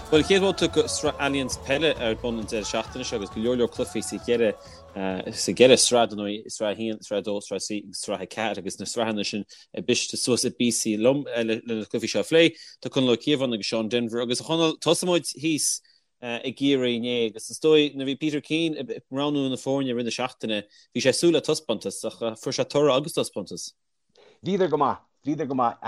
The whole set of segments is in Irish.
Bhuel, chéad bhabhta de Sraith Allianz Peile ar bun an deireadh seachtaine seo agus go leor leor cluichí sa cheithre sa gceithre sraith, dar ndóigh, Sraith 1, Sraith 2, Sraith 3 agus Sraith 4 agus na sraitheanna sin briste suas i bpíosaí liom le na cluichí seo a phlé. Tá Conall Ó Cíobháin agus Seán Denvir agus a Chonaill, tosóidh muid thíos i gCiarraí inné agus is dóigh nuair a bhí Peter Keane ag roghnú na foirne i rith na seachtaine, bhí sé ag súil le taispeántas ach fuair sé toradh agus taispeántas. Bhíodar go maith. Bhíodar go maith.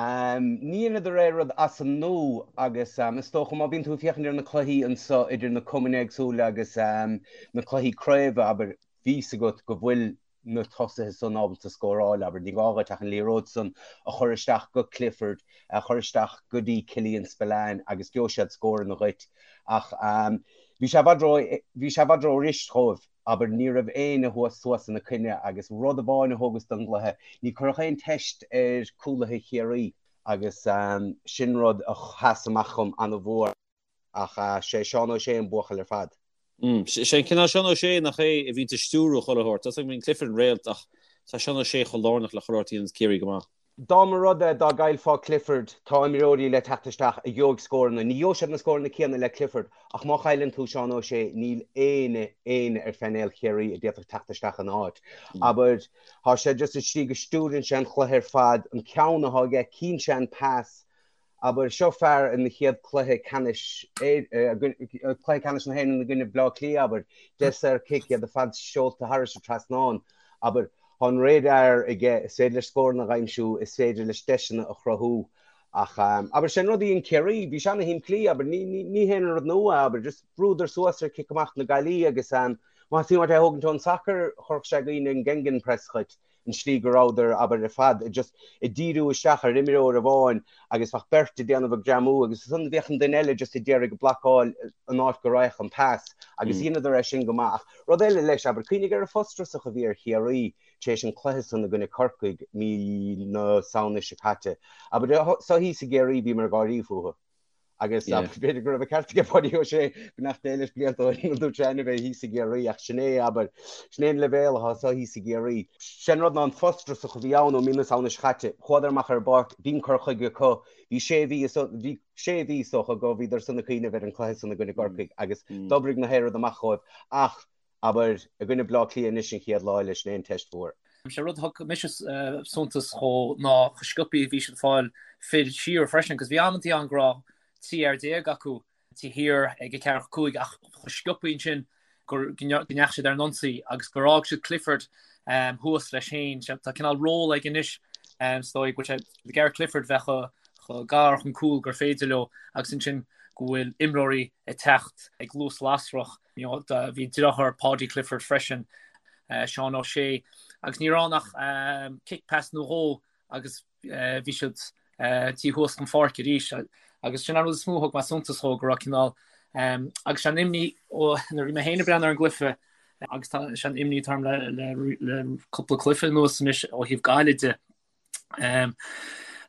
Ní dheineadar aon rud as an nua agus is dócha má bhíonn tú ag féachaint ar na cluichí anso idir na cumainn éagsúla agus na cluichí craoibhe, abair, bhí fhios agat go bhfuil na tosaithe san ábalta scóráil, abair, ní gá dhuit ach an liathróid san a chur isteach go Clifford, a chur isteach go dtí Killian Spillane agus gheobhaidh siad scóranna dhuit. Ach bhí sé i bhfad ró, bhí sé i bhfad ró-fhuirist dhóibh. Abair, ní raibh éinne thuas suas ina coinne agus rud amháin a thógas don gcluiche, ní cuireadh aon teist ar cúlaithe Chiarraí agus sin rud a sheas amach dhom ana-mhór ach sé Seán Ó Sé an buachaill ar fad. Sé an cineál Seán Ó Sé nach é a bhíonns ag stiúrú chuile shórt. Tá a fhios agam bíonn Clifford an réalt ach tá Seán Ó Sé chomh lárnach le chuile shórt a dhéananns Ciarraí go maith. Dá mba rud é dá gcaillfeá Clifford, tá imreoirí le teacht isteach a gheobhaidh scóranna. Ní gheobhaidh siad na scóranna céanna le Clifford, ach má chailleann tú Seán Ó Sé, níl éinne, éinne ar phainéal Chiarraí a d'fhéadfadh teacht isteach ina áit. Abair, tá sé just an tslí go stiúrann sé an chluiche ar fad, an ceann atá aige, cíonn sé an pas, Abair, seo fear ina chéad cluiche ceannais, cluiche ceannais na hÉireann i gcoinne Bhaile Átha Cliath, abair, 10 saor-chic, iad ar fad seolta thairis an trasnán, abair, tá an radar aige, is féidir leis scóranna a aimsiú, is féidir leis deiseanna a chruthú. Ach, abair, sé an rud a dhein Ciarraí, bhí sé ana-shimplí, abair, ní, ní, ní haon rud nua, abair, just bhrúdar suas ar cic amach na Gaillimhe agus, má theastaíonn uait é a thógaint ón sacar, chuirfeadh sé i gcuimhne an Gegenpress dhuit. an tslí go rabhadar, abair, ar fad just ag díriú isteach ar imreoir amháin agus bheadh beirt ag déanamh ag greamú agus ansan bheadh an duine eile just ag iarraidh ag blocáil an áit go raghadh an pas agus dheineadar é sin go maith. Ach rud eile leis, abair, cuimhnigh ar an bhfrustrachas a bhí ar Chiarraí tar éis an cluiche san i gcoinne Corcaigh mí na Samhna seo caite. Abair, so thíos i gCiarraí bhíomar ag gáirí fúthu. Agus b'fhéidir go raibh an ceart aige Páidí Ó Sé, beannacht Dé leis blianta ó shin, dúirt sé ainm é thíos i gCiarraí ach sin é, abair, sin é an leibhéal atá so thíos i gCiarraí. Sé an rud ná an frustrachas a bhí ann ó mí na Samhna seo caite, chuadar amach ar an bpáirc, bhí an cur chuige acu, bhí sé mhí, bhí sé mhí is dócha go bhíodar san ag cuimhneamh ar an cluiche san i gcoinne gCorcaigh agus d'oibrigh na haon rud amach dhóibh ach Abair, i gcoinne Bleá Cliath anois an chéad lá eile, sin é an teist mhór. Sé rud a thug mise suntas dhó ná chomh sciobtha a bhí siad ag fáil fir siar freisin, 'cause bhí amantaí ann go raibh 13 fhear acu taobh thiar ag an ceathracha 5 ach chomh sciobtha ansin go ndeachaigh siad ar an ionsaí agus gur fhág siad Clifford thuas leis féin. Tá cineál ról aige anois, is dóigh go bhfuil sé ag iarraidh Clifford bheith chomh gar chun cúil gur féidir leo agus ansin go bhfuil imreoirí ag teacht ag luas lasrach. Bhí deartháir Paudie Clifford freisin, Seán O'Shea, agus ní raibh ann ach kick pass nó dhó agus bhí siad taobh thuas den pháirc arís. Agus sin an rud is mó a thug mé suntas dhó, go raibh cineál, agus sé an imní ó nuair a bhí mé féin ag breathnú ar an gcluiche, agus tá sé an imní atá orm le cúpla cluiche anuas anois ó thaobh Gaillimh de,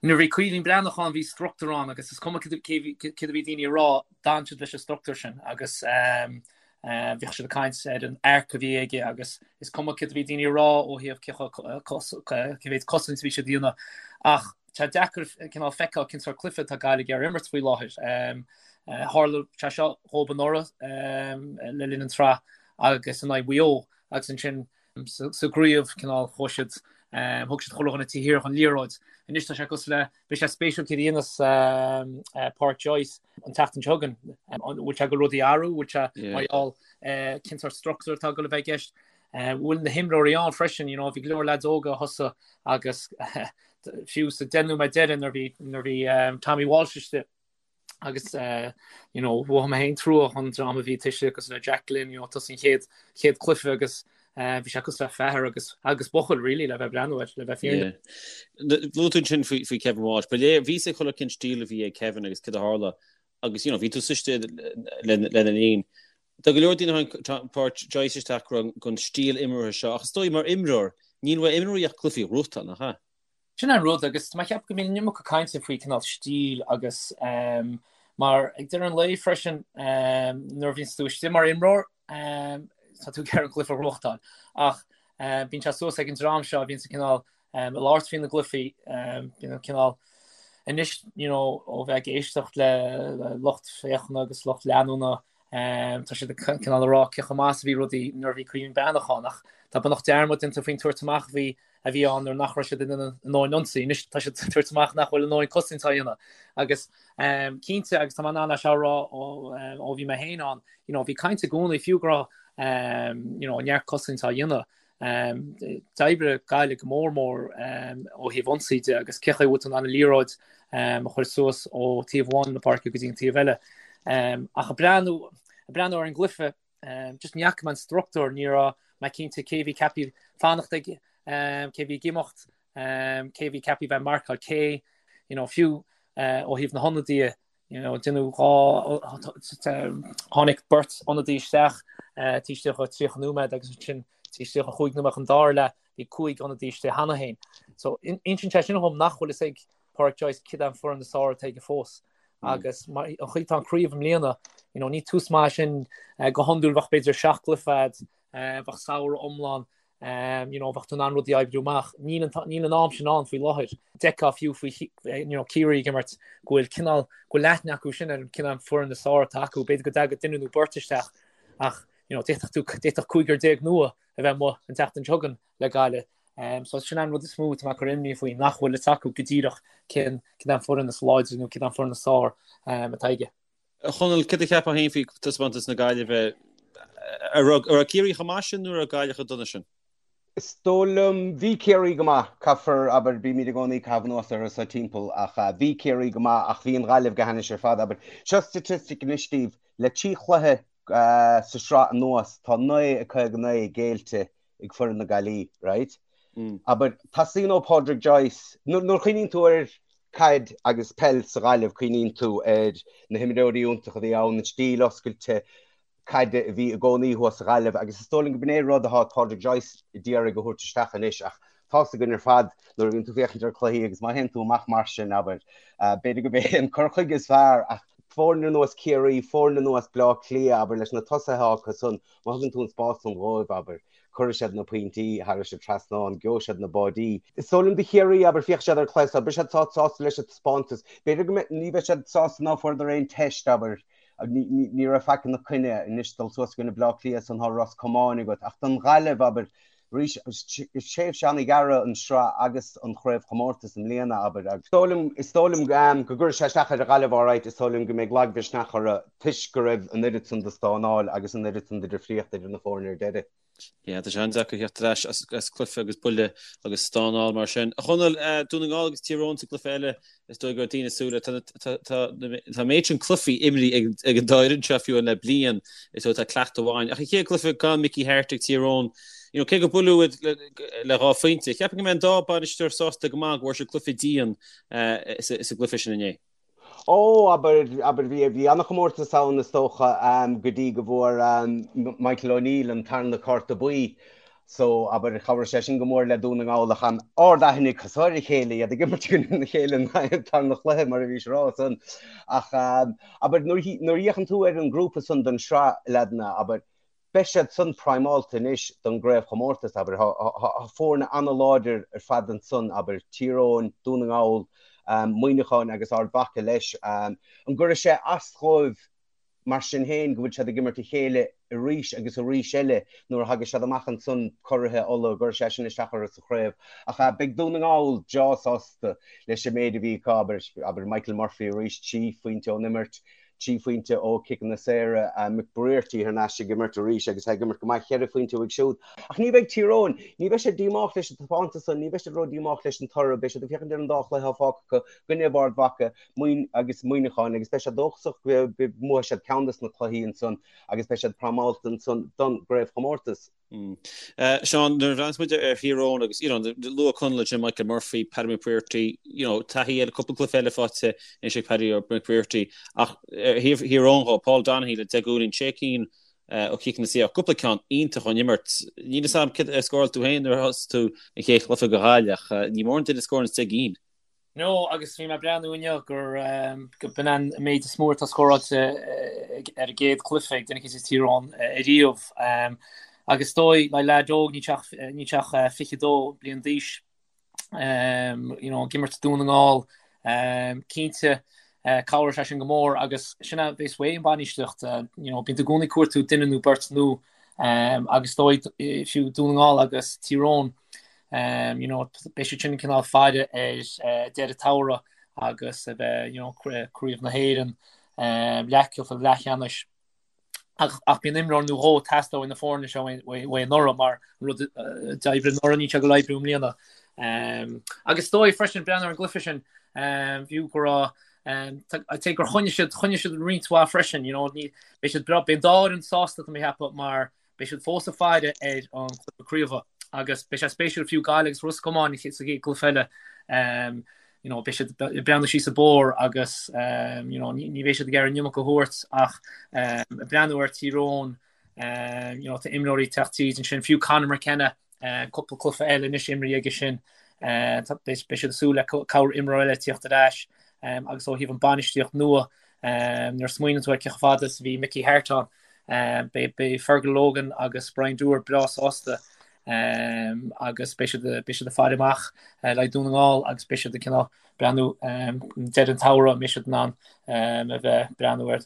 Nuair a bhí Caoimhín Breathnach ann bhí struchtúr ann agus is cuma céard a bhí daoine a rá, d'fhan siad leis an struchtúr sin agus bhíodh siad ag caint ar an arc a bhí aige agus is cuma céard a bhí daoine a rá ó thaobh cé mhéad cosaint a bhí siad a dhéanamh. Ach tá deacair cineál feiceáil cén sórt cluiche atá Gaillimh ag iarraidh imirt faoi láthair. Tharla sé seo dhóibh anuraidh le linn an tsraith agus in aghaidh Mhaigh Eo agus ansin sa gcraobh, cineál, chuaigh siad, thug siad chuile dhuine taobh thiar den liathróid. Anois tá sé cosúil le, beidh sé spéisiúil céard a dhéanas Pádraic Joyce an tseachtain seo chugainn. An bhfuil sé ag goil rudaí a athrú, bhfuil sé mar gheall cén sórt struchtúr atá ag goil a bheith i gceist. Bhfuil na himreoirí ann freisin, you know, bhí go leor leaids óga a thosaigh agus fiú sa 10 nóiméad deiridh nuair bhí nuair bhí Tommy Walsh istigh, agus you know mhothaigh mé féin trua don dream a bhí tuirseach cosúil le Jack Glynn you know tosaí an chéad chéad cluiche agus bhí sé cosúil le fear agus agus buachaill really le bheith breathnú air le bheith fírinneach. Luaigh tú ansin faoi faoi Kevin Walsh. Ba léir bhí a fhios ag chuile cén stíl a bhí ag Kevin agus céard a tharla agus you know bhí tú suite lena linn. Tá go leor daoine a tháinig Pádraic Joyce isteach go raibh an stíl imeartha seo ach is dóigh mar imreoir níl uaidh imreoirí ach cluichí a ghnóthachtáil, nach ea? Sin an rud, agus tá mé ag ceapadh go mbíonn an iomarca cainte faoi cineál stíl agus mar ag deireadh an lae freisin nuair a bhíonns tú istigh mar imreoir tá tú ag iarraidh an cluiche a ghnóthachtáil ach bíonn sé suas ag an dream seo a bhíonns cineál ag labhairt faoi na gcluichí, bíonn cineál. Anois, you know, ó bheith ag éisteacht le lucht féachana agus lucht leanúna, tá siad ag cineál ag rá cé chomh maith is a bhí rudaí nuair a bhí Caoimhín Breathnach ann, ach tá beagnach dearmad déanta faoin tabhairt amach a bhí a bhí ann nuair nach raibh siad in ann a ndóthain ionsaí. Anois tá siad ag tabhairt amach nach bhfuil a ndóthain cosaint á dhéanamh. Agus cinnte, agus tá mé in ann é seo a rá ó bhí mé féin ann, you know, bhí caint i gcónaí fiú go raibh you know, neart cosaint á dhéanamh. D'oibrigh Gaillimh go mór mór ó thaobh ionsaí de agus cé chaoi a bhfuil tú in ann an liathróid a chur suas ó taobh amháin na páirce go dtí an taobh eile. Ach ag breathnú ag breathnú ar an gcluiche, just ní fhaca mé an struchtúr, ní raibh mé cinnte cé bhí ceaptha fanacht ag, cé bhí ag imeacht, cé bhí ceaptha bheith ag marcáil cé, you know, fiú ó thaobh na hionadaithe, You know, déanadh 2, tháinig beirt ionadaí isteach taobh istigh de 30 nóiméad agus ansin taobh istigh de chúig nóiméad an dara leath bhí cúig ionadaí istigh cheana féin. So insíonn sé sin dhom nach bhfuil fhios ag Pádraic Joyce cad é an foireann is fearr atá aige fós. Agus mar an chaoi atá an craobh i mbliana, you know, ní tús maith sin go hiondúil bheadh b'fhéidir seacht gcluiche agat, bheadh samhradh iomlán you know, bheadh tú in ann rudaí a oibriú amach. Níl an, níl an am sin ann faoi láthair. D'fheicfeá fiú faoi you know, Ciarraí ag imirt go bhfuil cineál, go bhfuil aithne acu sin ar an cineál foireann is fearr atá acu. B'fhéidir go dtagadh duine nó beirt isteach ach you know, d'fhéadfadh tú, d'fhéadfadh cúigear déag nua a bheith amuigh an tseachtain seo chugainn le Gaillimh. Um, so sin an rud is mó atá mé ag cur imní faoi, nach bhfuil fhios acu go díreach cén, cén an foireann is láidre nó cén an foireann is fearr um, atá aige. A Chonaill, céard a cheapfá féin faoi taispeántas na Gaillimhe? An raibh Ciarraí chomh maith sin nó an raibh Gaillimh chomh dona sin? Is dóigh liom, bhí Ciarraí go maith, caithfear, abair, bímid i gcónaí ag caitheamh anuas orthu so timpeall, ach bhí Ciarraí go maith ach bhí an Ghaillimh go hainnis ar fad, abair. Seo staitistic anois daoibh, le trí chluiche sa sraith anuas, tá 9 59 géillte ag foireann na Gaillí, right? Abair, teastaíonn ó Pádraig Joyce, nuair a chuimhníonn tú ar caid agus peil sa Ghaillimh, cuimhníonn tú ar na himreoirí iontacha a bhí ann, an stíl oscailte caide a bhí i gcónaí thuas sa Ghaillimh agus is dóigh liom go b'in é rud atá Pádraig Joyce ag iarraidh a thabhairt isteach anois ach tá's againn ar fad nuair a bhíonn tú féachaint ar cluichí agus má théann tú amach mar sin, abair, b'fhéidir go b'é an cur chuige is fearr ach foirne ar nós Ciarraí, foirne ar nós Bleá Cliath, abair, leis na tosaithe acu san, Má thugann tú an spás san dhóibh, abair, cuirfidh siad na pointí thairis an trasnán, gheobhaidh siad na báidí. Is dóigh liom do Chiarraí, abair, féachfaidh siad ar an chluiche so, beidh siad sásta leis an taispeántas. B'fhéidir go mbeidh, ní bheidh siad sásta ná fuaireadar aon teist, abair, ní raibh faic ina coinne anois dul suas i gcoinne Bleá Cliath san tá Ros Comáin agat. Ach don Ghaillimh, abair, Arís, is tréimhse an-ghearr an sraith agus an chraobhchomórtas i mbliana, abair, agus is dóigh liom, is dóigh liom go gcuirfidh sé isteach ar an Ghaillimh alright, is dóigh liom go mbeidh lagmhisneach orthu toisc go raibh an oiread san de stánáil agus an oiread san de dhifríocht idir na foirne ar deireadh. Yeah, tá sé an-deacair theacht ar ais as cluiche agus buille agus stánáil mar sin. A Chonaill, Dún na nGall agus Tír Eoghain sa gcluiche eile, is dóigh go raibh daoine ag súil le, tá an méid sin cluichí imrithe ag an dá fhoireann seo fiú le bliain, is dóigh tá cleachtadh amháin. Ach an chéad cluiche gan Mickey Harte ag Tír Eoghain, you know, cé gur buaileadh iad le dhá phointe, cheapfainn go mbeidh an dá bainisteoir sásta go maith go bhfuair siad cluiche dian sa gcluiche sin inné. Ó, abair, abair, bhí, bhí an-chomórtas ann is dócha go dtí go bhfuair Michael O'Neill an tarna cárta buí. So, abair, chabhraigh sé sin go mór le Dún na nGall ach ard-aithne acu so ar a chéile, iad ag imirt i gcoinne a chéile an tarna chluiche mar a bhís a rá san. Ach, abair, nuair a fhéachann tú ar an ngrúpa san don sraith, leaideanna, abair, beidh siad san primeáilte anois don gcraobhchomórtas, abair. Tá foirne an-láidir ar fad ansan, abair, Tír Eoghain, Dún na nGall, Muineachán agus Ard Mhacha leis. An gcuirfidh sé as dhóibh Mar sin féin, go bhfuil siad ag imirt a chéile arís agus arís eile nuair a thagas siad amach ansan curaithe Uladh, go gcuirfidh sé sin isteach orthu sa chraobh. Ach beidh Dún na nGall breá sásta leis an méid a bhí acu, abair, abair Michael Murphy arís, 3 phointe ón imirt, 3 phointe ó chiceanna saora, McBrearty thar n-ais ag imirt arís agus é ag imirt go maith, cheithre phointe uaidh siúd. Ach ní bheidh Tír Eoghain, ní bheidh siad díomách leis an taispeántas san, ní bheidh siad ró-dhíomách leis an toradh, beidh siad ag féachaint ar an dá chluiche atá fágtha acu, i gcoinne Ard Mhacha, Muin agus Muineachán agus beidh siad dóchasach go mbuafaidh siad ceann des na cluichí ansan agus beidh siad primeáilte ansan don gcraobhchomórtas. Seán, nuair a bhreathnaíos muid ar Thír Eoghain agus, you know, luaigh Conall ansin Michael Murphy, Paddy McBrearty, you know, taithí eile, cúpla cluiche eile faighte anois ag Paddy McBrearty ach ar thaobh Thír Eoghain dhó, Paul Donoghue le 10 gcúilín, sé cinn ó chiceanna saora, cúpla ceann iontach ón imirt. Níl fhios a'm céard a scóráil tú féin nuair a thosaigh tú an chéad chluiche do Ghaillimh ach ní mórán duine a scóranns 10 gcinn. No, agus bhí mé ag breathnú inniu gur go b'in an méid is mó atá scóráilte ar an gcéad chluiche ag duine eicínt as Tír Eoghain ariamh. Agus is dóigh, le leaid óg, níl sé ach, níl sé ach 22 bliain d'aois, you know, ag imirt Dún na nGall. Cinnte, cabhróidh sé sin go mór agus sin a bheas uaidh an bhainistíocht, you know, bíonn tú i gcónaí ag cuartú duine nó beirt nua agus is dóigh fiú Dún na nGall agus Tír Eoghain, you know, beidh siad sin cineál faire ar deireadh an tsamhraidh agus a bheith, you know, Craobh na hÉireann, leathchluiche leathcheannais. Ach bíonn imreoir nó dhó ag teastáil ó na foirne seo uaidh anuraidh mar an rud a d'oibrigh anuraidh níl sé ag dul a oibriú i mbliana. Agus is dóigh freisin breathnú ar an gcluiche sin fiú go raibh I'd say gur choinnigh siad choinnigh siad roinnt mhaith freisin, you know, ní beidh siad beidh an dá fhoireann sásta tá mé ag ceapadh mar Beidh siad fós ag faire ar an chluiche craoibhe agus beidh sé spéisiúil fiú Gaillimh agus Ros Comáin sa gcéad gcluiche eile. You know, beidh siad ag breathnú síos an bóthar agus you know, ní bheidh siad ag iarraidh an iomarca a thabhairt ach ag breathnú ar Tír Eoghain, you know, tá imreoirí ag teacht tríd ansin, fiú Conor McKenna, cúpla cluiche eile anois imrithe aige sin, beidh siad ag súil le corr imreoir eile tíocht ar ais agus ó thaobh an bainistíocht nua, nuair a smaoiníonn tú ar cé chomh fada is a bhí Mickey Harte ann, Beidh Fergal Logan agus Brian Dooher breá sásta agus beidh siad beidh siad ag faire amach le haghaidh Dún na nGall agus beidh siad ag cineál breathnú deireadh an tsamhraidh an mbeidh siad in ann a bheith breathnú ar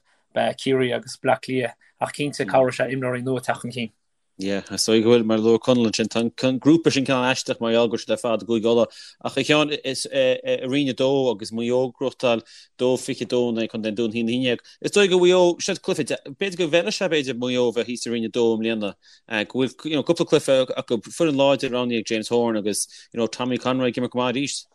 Ciarraí agus Bleá Cliath ach cinnte cabhróidh sé imreoirí nua teacht chun cinn. Yeah, is dóigh go bhfuil, mar a luaigh Conall ansin, tá an grúpa sin cineál aisteach mar gheall go bhfuil siad ar fad i gCúige Uladh. Ach a Sheáin, is i Roinn 2 agus Maigh Eo ag gnóthachtáil 2-22 in aghaidh Contae an Dúin 1-11. Is dóigh go Mhaigh Eo, siad cluiche, b'fhéidir go bhfeilfeadh sé b'fhéidir Maigh Eo a bheith thíos i Roinn 2 i mbliana, go bhfuil, you know, cúpla cluiche acu, foireann láidir roghnaithe ag James Horan agus, you know, Tommy Conroy ag imirt go maith arís.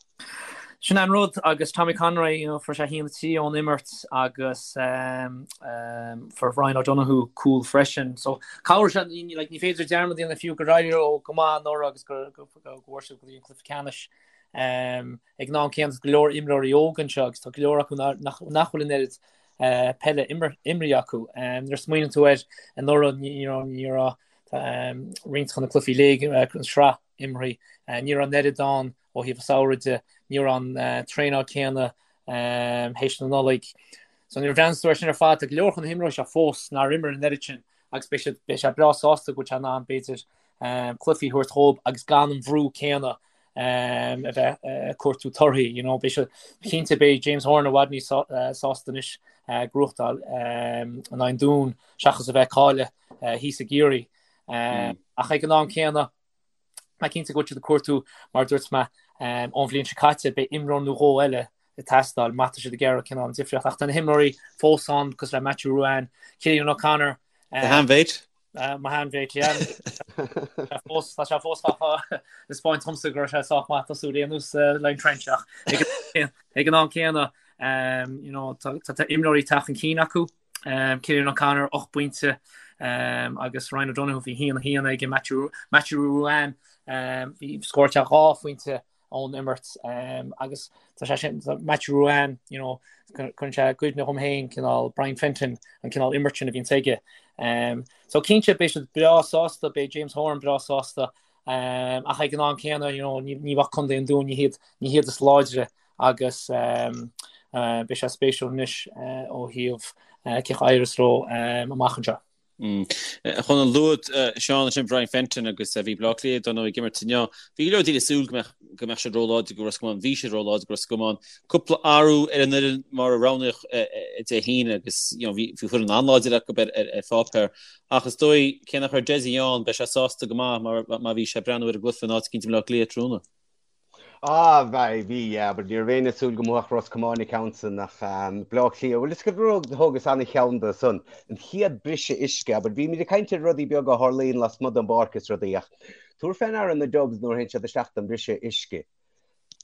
Sin an rud agus Tommy Conroy, you know, fuair sé 1-3 ón imirt agus fuair Ryan O'Donoghue cúl freisin. So cabhróidh sé, like, ní féidir dearmad a dhéanamh fiú gur éirigh leo go maith anuraidh agus go bhfuair siad go dtí an cluiche ceannais. Ag an am céanna tá go leor imreoirí óga anseo agus tá go leor acu nach bhfuil an oiread peile imrithe acu. Nuair a smaoiníonn tú air anuraidh, ní raibh roinnt de na cluichí léig an sraith imeartha. Ní raibh an oiread ann ó thaobh an samhraidh de, ní raibh an traenáil céanna théis na Nollag. So nuair a bhreathnaíonn tú air sin ar fad, tá go leor de na himreoirí seo fós nár imir an oiread sin agus beidh siad, beidh sé breá sásta go bhfuil sé in ann b'fhéidir cluichí a thabhairt dhóibh agus gan an bhrú céanna a bheith ag cuartú torthaí. You know, beidh sé, cinnte beidh James Horan i bhfad níos sásta anois gnóthachtáil in aghaidh an Dúin seachas a bheith ag cailleadh thíos i gCiarraí. Ach ag an am céanna, Tá cinnte go bhfuil siad ag cuartú, mar a dúirt mé, ón bhliain seo caite, beidh imreoir nó dhó eile ag teastáil má tá siad ag iarraidh cineál an difríocht. Ach tá na himreoirí fós ann, cosúil le Matthew Ruane, Cillian O'Connor. Do sheanmhéit? Mo sheanmhéit, yeah. Fós, tá sé fós ag taispeáint domsa go raibh sé sách maith tosú ar aon nós le Trench ach ag an am céanna, you know, tá imreoirí ag teacht chun cinn acu. Cillian O'Connor, 8 bpointe, agus Ryan O'Donoghue, bhí 1-1 aige, Matthew Ruane, bhí scóráil sé 2 phointe ón imirt agus tá sé sin, Matthew Ruane, you know, cuireann sé i gcuimhne dhom féin cineál Brian Fenton, an cineál imirt sin a bhíonns aige. So cinnte beidh siad breá sásta, beidh James Horan breá sásta, ach ag an am céanna, you know, ní bheadh Contae an Dúin, ní hiad, ní hiad is láidre agus beidh sé spéisiúil anois ó thaobh cén chaoi a éireos leo amach anseo. A Chonaill, luaigh Seán ansin Brian Fenton agus bhí Bleá Cliath dar ndóigh ag imirt inniu. Bhí go leor daoine ag súil go mbeadh go mbeadh siad róláidir do Ros Comáin. Bhí siad róláidir do Ros Comáin. Cúpla athrú ar an fhoireann mar a roghnaíodh Dé hAoine agus you know bhí bhí foireann an-láidir acu ar ar pháipéar. Ach is dóigh cé nach raibh Dessie ann beidh sé sásta go maith mar má bhí sé ag breathnú ar an gcluiche in áit eicínt i mBleá Cliath tráthnóna. Ah, bhí, bhí, yeah, but ní raibh éinne ag súil go mbuafadh Ros Comáin an ceann san ach Bleá Cliath, bhuel is go rud thógas an-cheann de san, an chéad briseadh uisce, but bímid ag caint ar rudaí beaga a tharlaíonn lasmuigh den bpáirc is rudaí ach tabhair fé ndeara na Dubs nuair a théann siad isteach don briseadh uisce.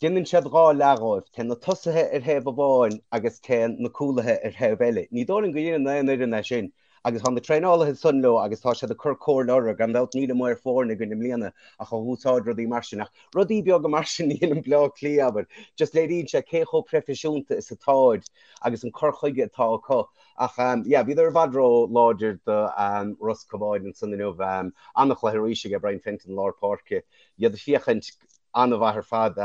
Déanann siad 2 leath dhóibh, téann na tosaithe ar thaobh amháin agus téann na cúlaithe ar thaobh eile. Ní dóigh liom go ndéanann aon fhoireann é sin. Agus tá na traenálaithe ansan leo agus tá siad ag cur comhairle orthu. Gan dabht níl an maor foirne againn i mbliana ach a dh'úsáid rudaí mar sin. Ach rudaí beaga mar sin a dhéanann Bleá Cliath, abair. Just léiríonn sé cé chomh proifisiúnta is atáid agus an cur chuige atá acu. Ach yeah, bhíodar i bhfad ró láidir do Ros Comáin ansan inniu. An-chluiche arís aige Brian Fenton i lár páirce. Iad ag féachaint an-mhaith ar fad.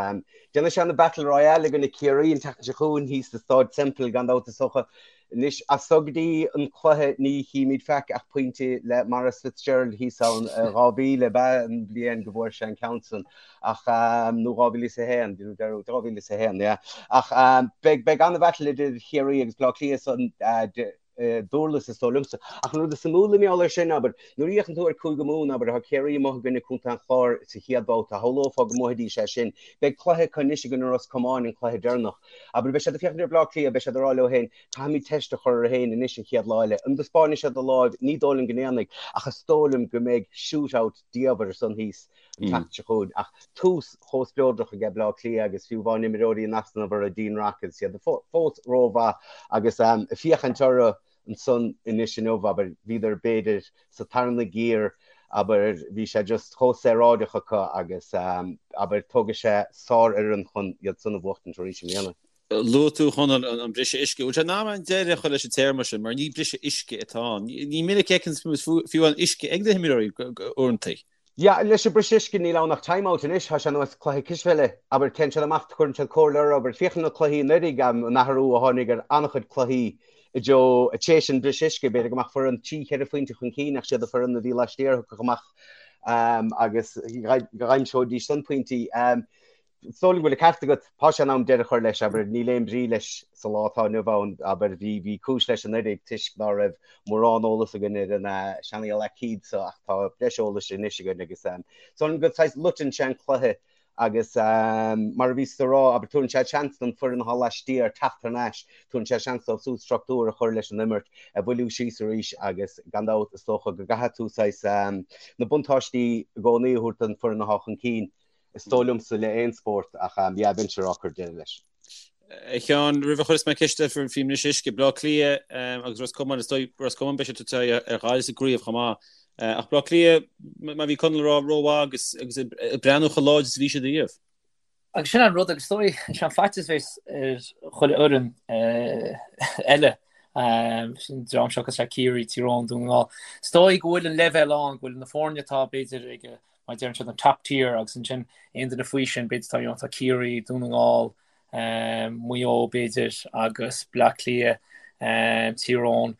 Déanfaidh sé an Battle Royale i gcoinne Ciarraí an tseachtain seo chugainn thíos sa Stáid Semple gan dabht is dócha. Anois, as so go dtí an cluiche ní chímid faic ach pointe le Maurice Fitzgerald thíos ann, 2000 ab ea an bhliain go bhfuair sé an ceann san ach, nó 2001, 2001, yeah. Ach beidh, beidh an-bhattle idir Chiarraí agus Bleá Cliath san Durlas is dóigh liomsa. Ach an rud is suimiúla i ngeall air sin, abair, nuair a fhéachann tú ar Cúige Mumhan, abair, tá Ciarraí amuigh i gcoinne Contae an Chláir sa chéad bhabhta, shamhlófá go mbuafaidís é sin. Beidh cluiche acu anois i gcoinne Ros Comáin, an cluiche deireanach. Abair, beidh siad ag féachaint ar Bleá Cliath, beidh siad ag rá leo féin, caithfimid teist a chur orainn féin anois an chéad lá eile. An dtaispeánfaidh siad a láimh? Ní dóigh liom go ndéanfaidh, ach is dóigh liom go mbeidh shoot-out diamhair ansan thíos an tseachtain seo chugainn. Ach tús chomh spleodrach aige Bleá Cliath agus fiú amháin imreoirí in easnamh orthu, Dean Rock agus iad fós rómhaith agus ag féachaint orthu ansan anois inniu, abair, bhíodar b'fhéidir sa tarna giar, abair, bhí sé just chomh saoráideach acu agus, abair, tógfaidh sé sárfhoireann chun iad san a bhuachtaint arís i mbliana. Luaigh tú, a Chonaill, an briseadh uisce. Bhfuil sé in am an deireadh a chur leis an téarma sin, mar ní briseadh uisce atá ann. Ní minic a fheiceann fiú an uisce ag na himreoirí uaireanta. Yeah, leis an briseadh uisce níl ann ach time out anois, tá sé ar nós cluiche cispheile, abair, téann siad amach, cuireann siad comhairle orthu, abair, féach ar na cluichí anuraidh, an athrú a tháinig ar an-chuid cluichí i dtreo, tar éis an briseadh uisce, b'fhéidir go mbeadh foireann trí, cheithre phointe chun cinn ach siad an foireann a bhí laistiar a thiocfadh amach agus d'aimseoidís san pointí. Is dóigh liom go bhfuil an ceart agat. Tá sé in am deireadh a chur leis, abair. Níl aon bhrí leis sa lá atá inniu ann, abair. Bhí, bhí cúis leis anuraidh toisc ná raibh mórán eolas againn ar an seanfhocal aicíd so ach tá breis eolais anois againn agus is dóigh liom go saghas loiteann sé an cluiche agus mar a bhíos ag rá, abair, tabharann sé seans don foireann atá laistiar teacht thar n-ais, tabharann sé seans dóibh súd struchtúr a chur leis an imirt, a bhailiú síos arís agus gan dabht is dócha go gcaithfidh tú saghas na buntáistí i gcónaí a thabhairt don foireann atá chun cinn. Is dóigh liomsa le aon spórt ach yeah bheinnse ag rá cuir deireadh leis. A Sheáin, roimh a chuireas mé ceist ort faoin mbriseadh uisce, Bleá Cliath agus Ros Comáin, is dóigh Ros Comáin beidh siad ag tabhairt aghaidh ar Ghaillimh sa gcraobh chomh maith. Ach Bleá Cliath, mar a bhí Conall ag rá, rómhaith agus agus ag breathnú chomh láidir is a bhí siad ariamh. Agus sin an rud agus is dóigh, sin an faitíos a bheas ar chuile fhoireann eile, sin dream seo cosúil le Ciarraí, Tír Eoghain, Dún na nGall. Is dóigh go bhfuil an leibhéal ann, go bhfuil na foirne atá b'fhéidir ag mar a deireann siad, an top tier agus ansin aon duine faoi sin, b'fhéidir tá, you know, tá Ciarraí, Dún na nGall, Maigh Eo b'fhéidir agus Bleá Cliath, Tír Eoghain.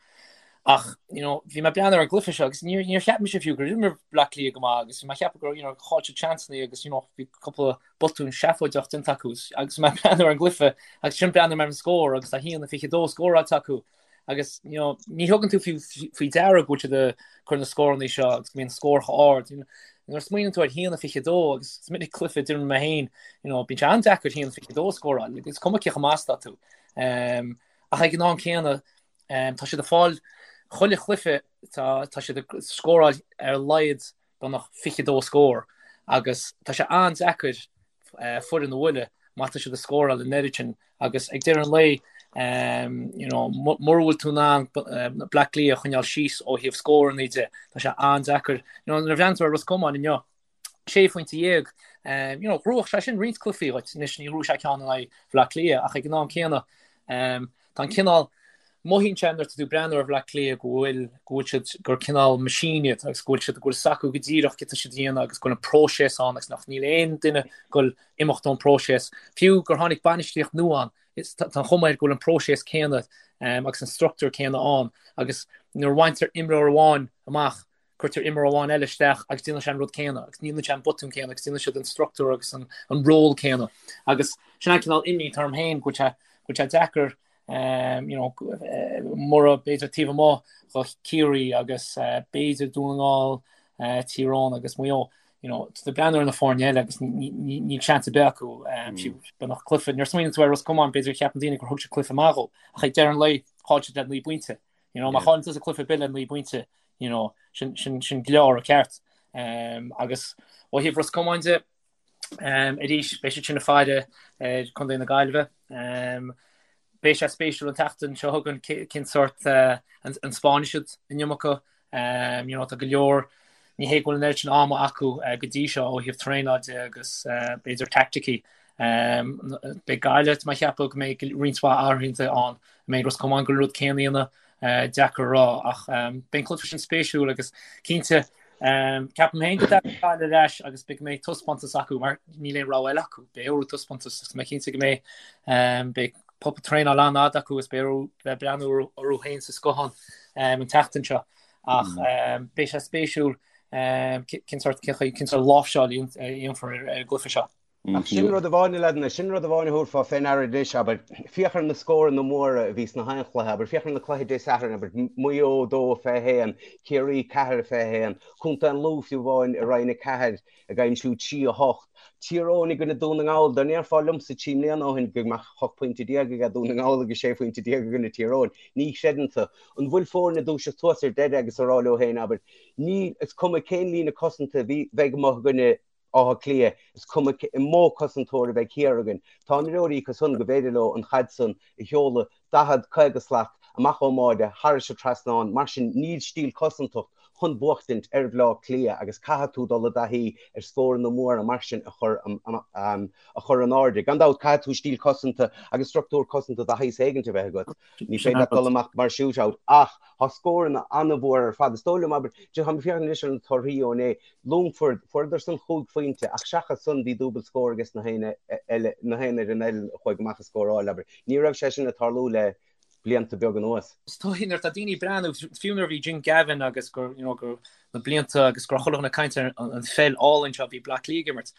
Ach, you know, bhí mé ag breathnú ar an gcluiche seo agus níor, níor cheap mise fiú gur imir Bleá Cliath go maith agus bhí mé ag ceapadh gur, you know, chaill siad seansanna agus, you know, bhí cúpla botún seafóideach déanta acu agus mé ag breathnú ar an gcluiche agus ansin breathnaigh mé ar an scór agus tá 1-22 scóráilte acu. Agus you know, ní thugann tú faoi deara go bhfuil siad ag cur na scóranna seo agus go mbíonn scór chomh ard. Nuair a smaoiníonn tú ar 1-22 agus is minic cluiche a d'imir mé féin, you know, bíonn sé an-deacair 1-22 a scóráil, is cuma cé chomh maith is atá tú. Um, ach ag an am céanna, um, tá siad ag fáil chuile chluiche tá, tá siad ag scóráil ar a laghad beagnach 22 scór agus tá sé an-deacair foireann a bhualadh má tá siad ag scóráil an oiread sin agus ag deireadh an lae you know, mura bhfuil tú in ann Bleá Cliath a choinneáil síos ó thaobh scóranna de, tá sé an-deacair. You know, nuair a bhreathnaíonn tú ar Ros Comáin inniu, sé phointe dhéag, you know, ghnóthódh sé sin roinnt cluichí dhuit, anois ní ghnóthóidh sé ceann in aghaidh Bhleá Cliath ach ag an am céanna Tá an cineál, mothaíonn sé nuair atá tú ag breathnú ar Bhleá Cliath go bhfuil, go bhfuil siad, gur cineál machine iad agus go bhfuil siad, go bhfuil 's acu go díreach céard atá siad a dhéanamh agus go bhfuil an próiseas ann agus nach níl aon duine ag goil imeacht ón próiseas. Fiú gur tháinig bainistíocht nua ann, is, tá an chuma air go bhfuil an próiseas céanna agus an struchtúr céanna ann agus nuair a bhaintear imreoir amháin amach, cuirtear imreoir amháin eile isteach agus déanann sé an rud céanna agus déanann sé an botún céanna agus déanann siad an struchtúr agus an, an ról céanna. Agus sin an cineál imní atá orm féin go bhfuil sé, go bhfuil sé deacair um, you know, mura b'fhéidir taobh amuigh do Chiarraí agus uh, b'fhéidir Dún na nGall, uh, Tír Eoghain agus Maigh Eo. You know, tá breathnú ar na foirne eile agus níl seans ar bith acu um, mm. beagnach cluiche. Nuair a smaoiníonn tú ar Ros Comáin b'fhéidir cheapann daoine gur thug siad cluiche maith dhó ach ag deireadh an lae chaill siad le 9 bpointe. You know, má chailleann tusa cluiche ar bith le 9 bpointe, you know, sin, sin, sin gleoir ceart. Um, agus ó thaobh Ros Comáin de, um, arís, beidh siad sin ag faire ar Contae na Gaillimhe. Um, beidh sé spéisiúil an tseachtain seo chugainn cén sórt uh, an, an spáinfidh siad an iomarca. Um, you know, tá go leor ní hé go bhfuil an oiread sin ama acu uh, go dtí seo ó thaobh traenáil de agus uh, b'fhéidir taicticí. Um, beidh Gaillimh tá mé ag ceapadh go mbeidh roinnt mhaith athruithe ann. An mbeidh Ros Comáin ag goil an rud céanna a dhéanamh, deacair a rá, ach beidh an cluiche sin spéisiúil agus cinnte ceapaim féin go dtagann Gaillimh ar ais agus beidh go mbeidh taispeántas acu mar níl aon rogha eile acu, beidh orthu taispeántas agus mé cinnte go mbeidh beidh. Cúpla traenáil an-fhada acu agus beidh orthu bheith breathnú orthu féin sa scáthán an tseachtain seo ach beidh sé spéisiúil cén sórt cén sórt láimhseáil a dhéanfar ar an gcluiche seo. Ach sin rud amháin, a leaideanna, sin rud amháin a thabharfá fé ndeara anois, abair, féach ar na scóranna móra a bhí sna haon chluiche, abair, féach ar na cluichí Dé Sathairn, abair, Maigh Eo 2-21, Ciarraí 4-21, Contae an Lú fiú amháin i Roinn 4, ag aimsiú 3, 8. Tír Eoghain i gcoinne Dún na nGall, dá ndéarfá liomsa 3 mbliana ó shin go mbeadh 18 pointe aige Dún na nGall agus 16 phointe i gcoinne Tír Eoghain, ní chreideann tú. An bhfuil foirne ag dúiseacht suas ar deireadh agus ag rá leo féin, abair, níl, is cuma cén líne cosanta a bheidh amuigh i gcoinne Átha Cliath, is cuma cén mó cosantóir a bheidh thiar againn, tá imreoirí acu san go bhféidir leo an chaid san a sheoladh 40, 50 slat amach ón mbáide thairis an trasnán, mar sin níl stíl cosantacht chun buachtaint ar Bhleá Cliath agus caithfidh tú dul i dtaithí ar scóranna móra mar sin a chur a chur in airde. Gan dabht caithfidh tú stíl cosanta agus struchtúr cosanta de shaghas éigint a bheith agat. Ní féidir leat dul amach mar shootout ach tá scóranna an-mhór ar fad. Is dóigh liom, abair, tá mé ag féachaint anois ar na torthaí ó inné, Longford, fuaireadar san chúig phointe ach seachas san bhí dúbailt scór ages na haon eile, na haon fhoireann eile a chuaigh amach ag scóráil, abair. Ní raibh sé sin ag tarlú le blianta beaga anuas. Is dóigh nuair atá daoine ag breathnú, fiú nuair a bhí Jim Gavin agus gur, you know, gur na blianta agus go raibh chuile dhuine ag caint ar an pheil álainn seo a bhí Bleá Cliath ag imirt.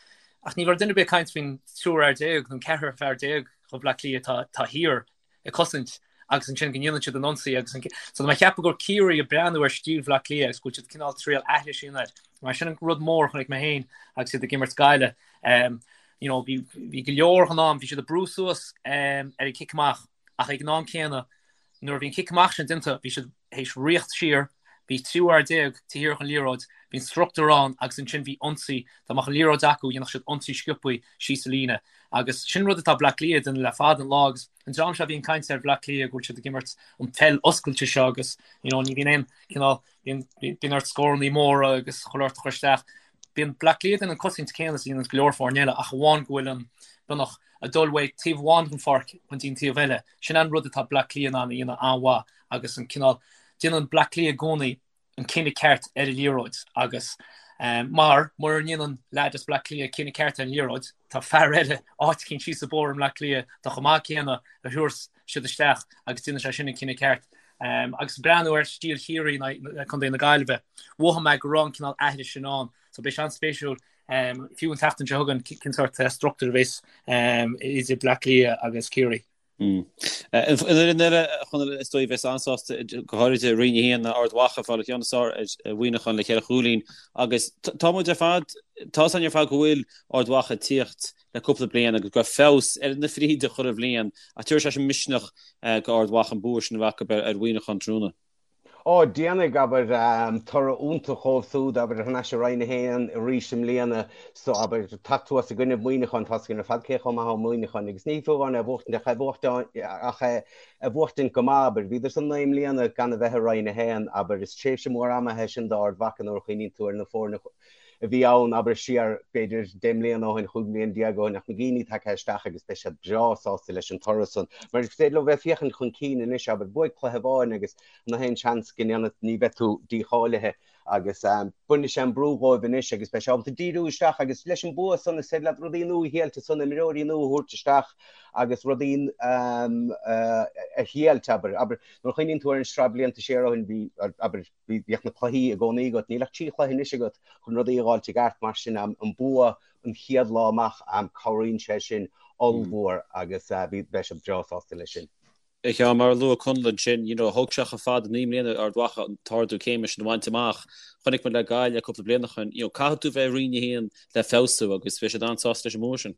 Ach ní raibh duine ar bith ag caint faoin triúr fhear déag nó an ceathrar fear déag ó Bhleá Cliath atá, atá thiar ag cosaint agus ansin go ndéanann siad an ionsaí agus an so tá mé ag ceapadh gur Ciarraí ag breathnú ar stíl Bhleá Cliath agus go bhfuil siad cineál triail aithris a dhéanamh air. Mar sin an rud mór a chonaic mé féin agus iad ag imirt Gaillimh. Um, you know, bhí, bhí go leor den am, bhí siad ag brú suas um, ar an cic amach ach ag an am céanna nuair a bhí an cic amach sin déanta bhí siad théis rith siar, bhí triúr fhear déag taobh thiar den liathróid, bhí an struchtúr ann agus ansin bhí ionsaí, dá mbeadh an liathróid acu dhéanfadh siad ionsaí sciobtha síos an líne agus sin rud atá Bleá Cliath ag déanamh le fada an lá agus an dream seo a bhíonn ag caint ar Bhleá Cliath go bhfuil siad ag imirt an pheil oscailte seo agus you know ní bhíonn aon cineál bíonn bíonn ort scórannaí móra agus chuile shórt a chur isteach. Bíonn Bleá Cliath ag déanamh an cosaint céanna is a dhéanann go leor foirne eile ach amháin go bhfuil an beagnach ag dul uaidh taobh amháin den pháirc chun dtí an taobh eile. Sin an rud atá Bleá Cliath in ann a dhéanamh an-mhaith agus an cineál, déanann Bleá Cliath i gcónaí an cinneadh ceart ar an liathróid agus mar mura ndéanann leaid as Bleá Cliath cinneadh ceart ar an liathróid, tá fear eile áit eicínt síos an bóthar i mBleá Cliath atá chomh maith céanna a thabharfas siad isteach agus déanann sé sin an cinneadh ceart. Agus breathnú ar stíl Chiarraí in Contae na Gaillimhe, mhothaigh mé go raibh an cineál aithris sin ann. So beidh sé an-spéisiúil fiú an tseachtain seo chugainn cén sórt struchtúr a bheas idir Bleá Cliath agus Ciarraí. An fhoireann eile a Chonaill is dóigh a bheas an-sásta go háirid i Roinn 1 ná Ard Mhacha ag fáil an ceann is fearr ar Mhuineachán le cheithre chúilín agus tá muid ar fad, tá 'fhios againn ar fad go bhfuil Ard Mhacha ag tíocht le cúpla bliain agus go raibh feabhas ar na fríde chuile bhliain ach tabharfaidh sé sin misneach go Ard Mhacha an bua sin a bheith acu ar Mhuineachán tráthnóna. Ó, déanfaidh, abair, toradh iontach dhóibh súd, abair, thar n-ais i Roinn 1 arís i mbliana, so, abair, teacht suas i gcoinnibh Muineacháin, tá's againn ar fad cé chomh maith atá Muineachán, agus ní fiú amháin é a bhuachtaint, ach é bhuachtaint, ach é a bhuachtaint go maith, abair. Bhíodar san 9 mbliana gan a bheith i Roinn 1, abair, is tréimhse mhór ama é sin d'Ard Mhacha nuair a chuimhníonn tú ar na foirne a bhí ann, abair, siar, b'fhéidir, 10 mbliana ó shin, 15 mbliana ó shin, ach na daoine tagtha isteach agus beidh siad breá sásta leis an toradh san. Mar is féidir leo bheith ag féachaint chun cinn anois, abair, buaigh cluiche amháin agus na haon seans go ndéanfaidh, ní bheidh tú dícháilithe agus bainfidh sé an brú dhóibh anois agus beidh sé ábalta díriú isteach agus leis an bua san is féidir leat rudaí nua a thriailt ansan, imreoirí nua a thabhairt isteach agus rudaí a thriailt, abair. Abair, nuair a chuimhníonn tú ar an sraith blianta siar ó shin, bhí, abair, bhíodh na cluichí i gcónaí agat, níl ach 3 chluiche anois agat chun rudaí a dh'fháilt i gceart, mar sin an bua an chéad lá amach, cabhraíonn sé sin ollmhór agus beidh siad breá sásta leis sin. A Sheáin, mar a luaigh Conall ansin, you know, thóg sé chomh fada 9 mbliana ar Ard Mhacha an t-ardú céime sin a bhaint amach. Chonaic muid le Gaillimh cúpla bliain ó shin, you know, caithfidh tú bheith i Roinn 1 le feabhsú agus beidh siad an-sásta leis an mbua sin.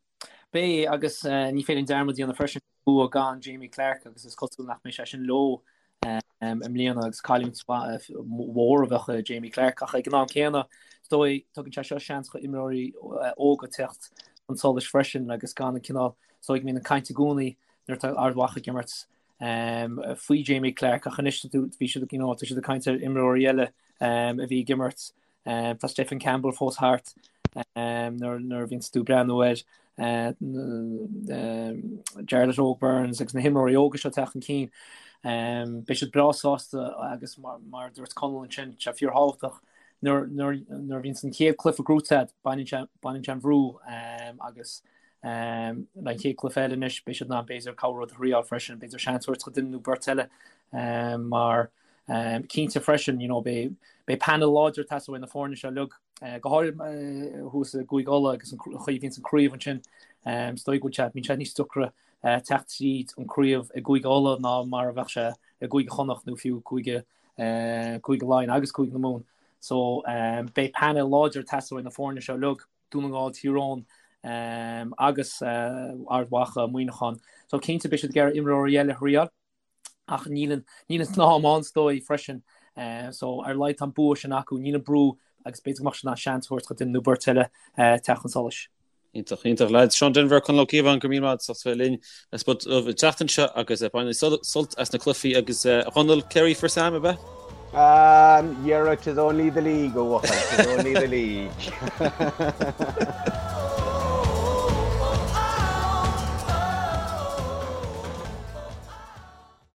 Beidh, agus ní féidir dearmad a dhéanamh freisin, bua gan Jamie Clarke agus is cosúil nach mbeidh sé sin leo i mbliana agus cailliúint mhór a bheadh i Jamie Clarke ach ag an am céanna is dóigh tugann sé seo seans do imreoirí óga teacht chun solais freisin agus gan an cineál is dóigh go mbíonn an caint i gcónaí nuair atá Ard Mhacha ag imirt faoi Jamie Clarke ach anois bhí siad you know, tá siad ag caint ar imreoirí eile a bhí ag imirt Tá Stephen Campbell fós thart nuair a bhíonns tú ag breathnú ar Jarlath Óg Burns agus na himreoirí óga seo ag teacht chun cinn. Beidh siad breá sásta agus mar a dúirt Conall ansin, sé fíorthábhachtach nuair a bhíonns an chéad cluiche gnóite agat, baineann sé an bhrú agus. Le an chéad cluiche eile anois beidh siad in ann b'fhéidir cúpla rud a thriáil freisin, b'fhéidir seans a thabhairt do duine nó beirt eile mar cinnte freisin you know beidh beidh panel láidir ag teastáil uaidh na foirne seo uilig, go háirithe thuas i gCúige Uladh agus an chaoi a bhíonns an craobh ansin. Is dóigh go bhfuil sé, bíonn sé níos deacra teacht tríd an craobh i gCúige Uladh ná mar a bheadh sé i gCúige Chonnacht nó fiú Cúige Cúige Laighean agus Cúige na Mumhan. So beidh panel láidir ag teastáil uaidh na foirne seo uilig, Dún na nGall, Tír Eoghain agus Ard Mhacha, Muineachán. So cinnte beidh siad ag iarraidh imreoirí eile a thriáil ach níl an níl an t-am ann is dóigh freisin. So ar a laghad tá an bua sin acu, níl an brú agus b'fhéidir go mbeadh siad in ann seans a thabhairt do duine nó beirt eile teacht chun solais. Iontach, iontach lads. Seán Denvir, Conall Ó Cíobháin, go raibh míle maith agat as ucht bheith linn ar Spota Dubh an tseachtain seo agus bain sult as na cluichí agus a Chonaill, Kerry for Sam, ab ea? Um, yerra, 'tis only the league, a bhuachaill, 'tis only the league.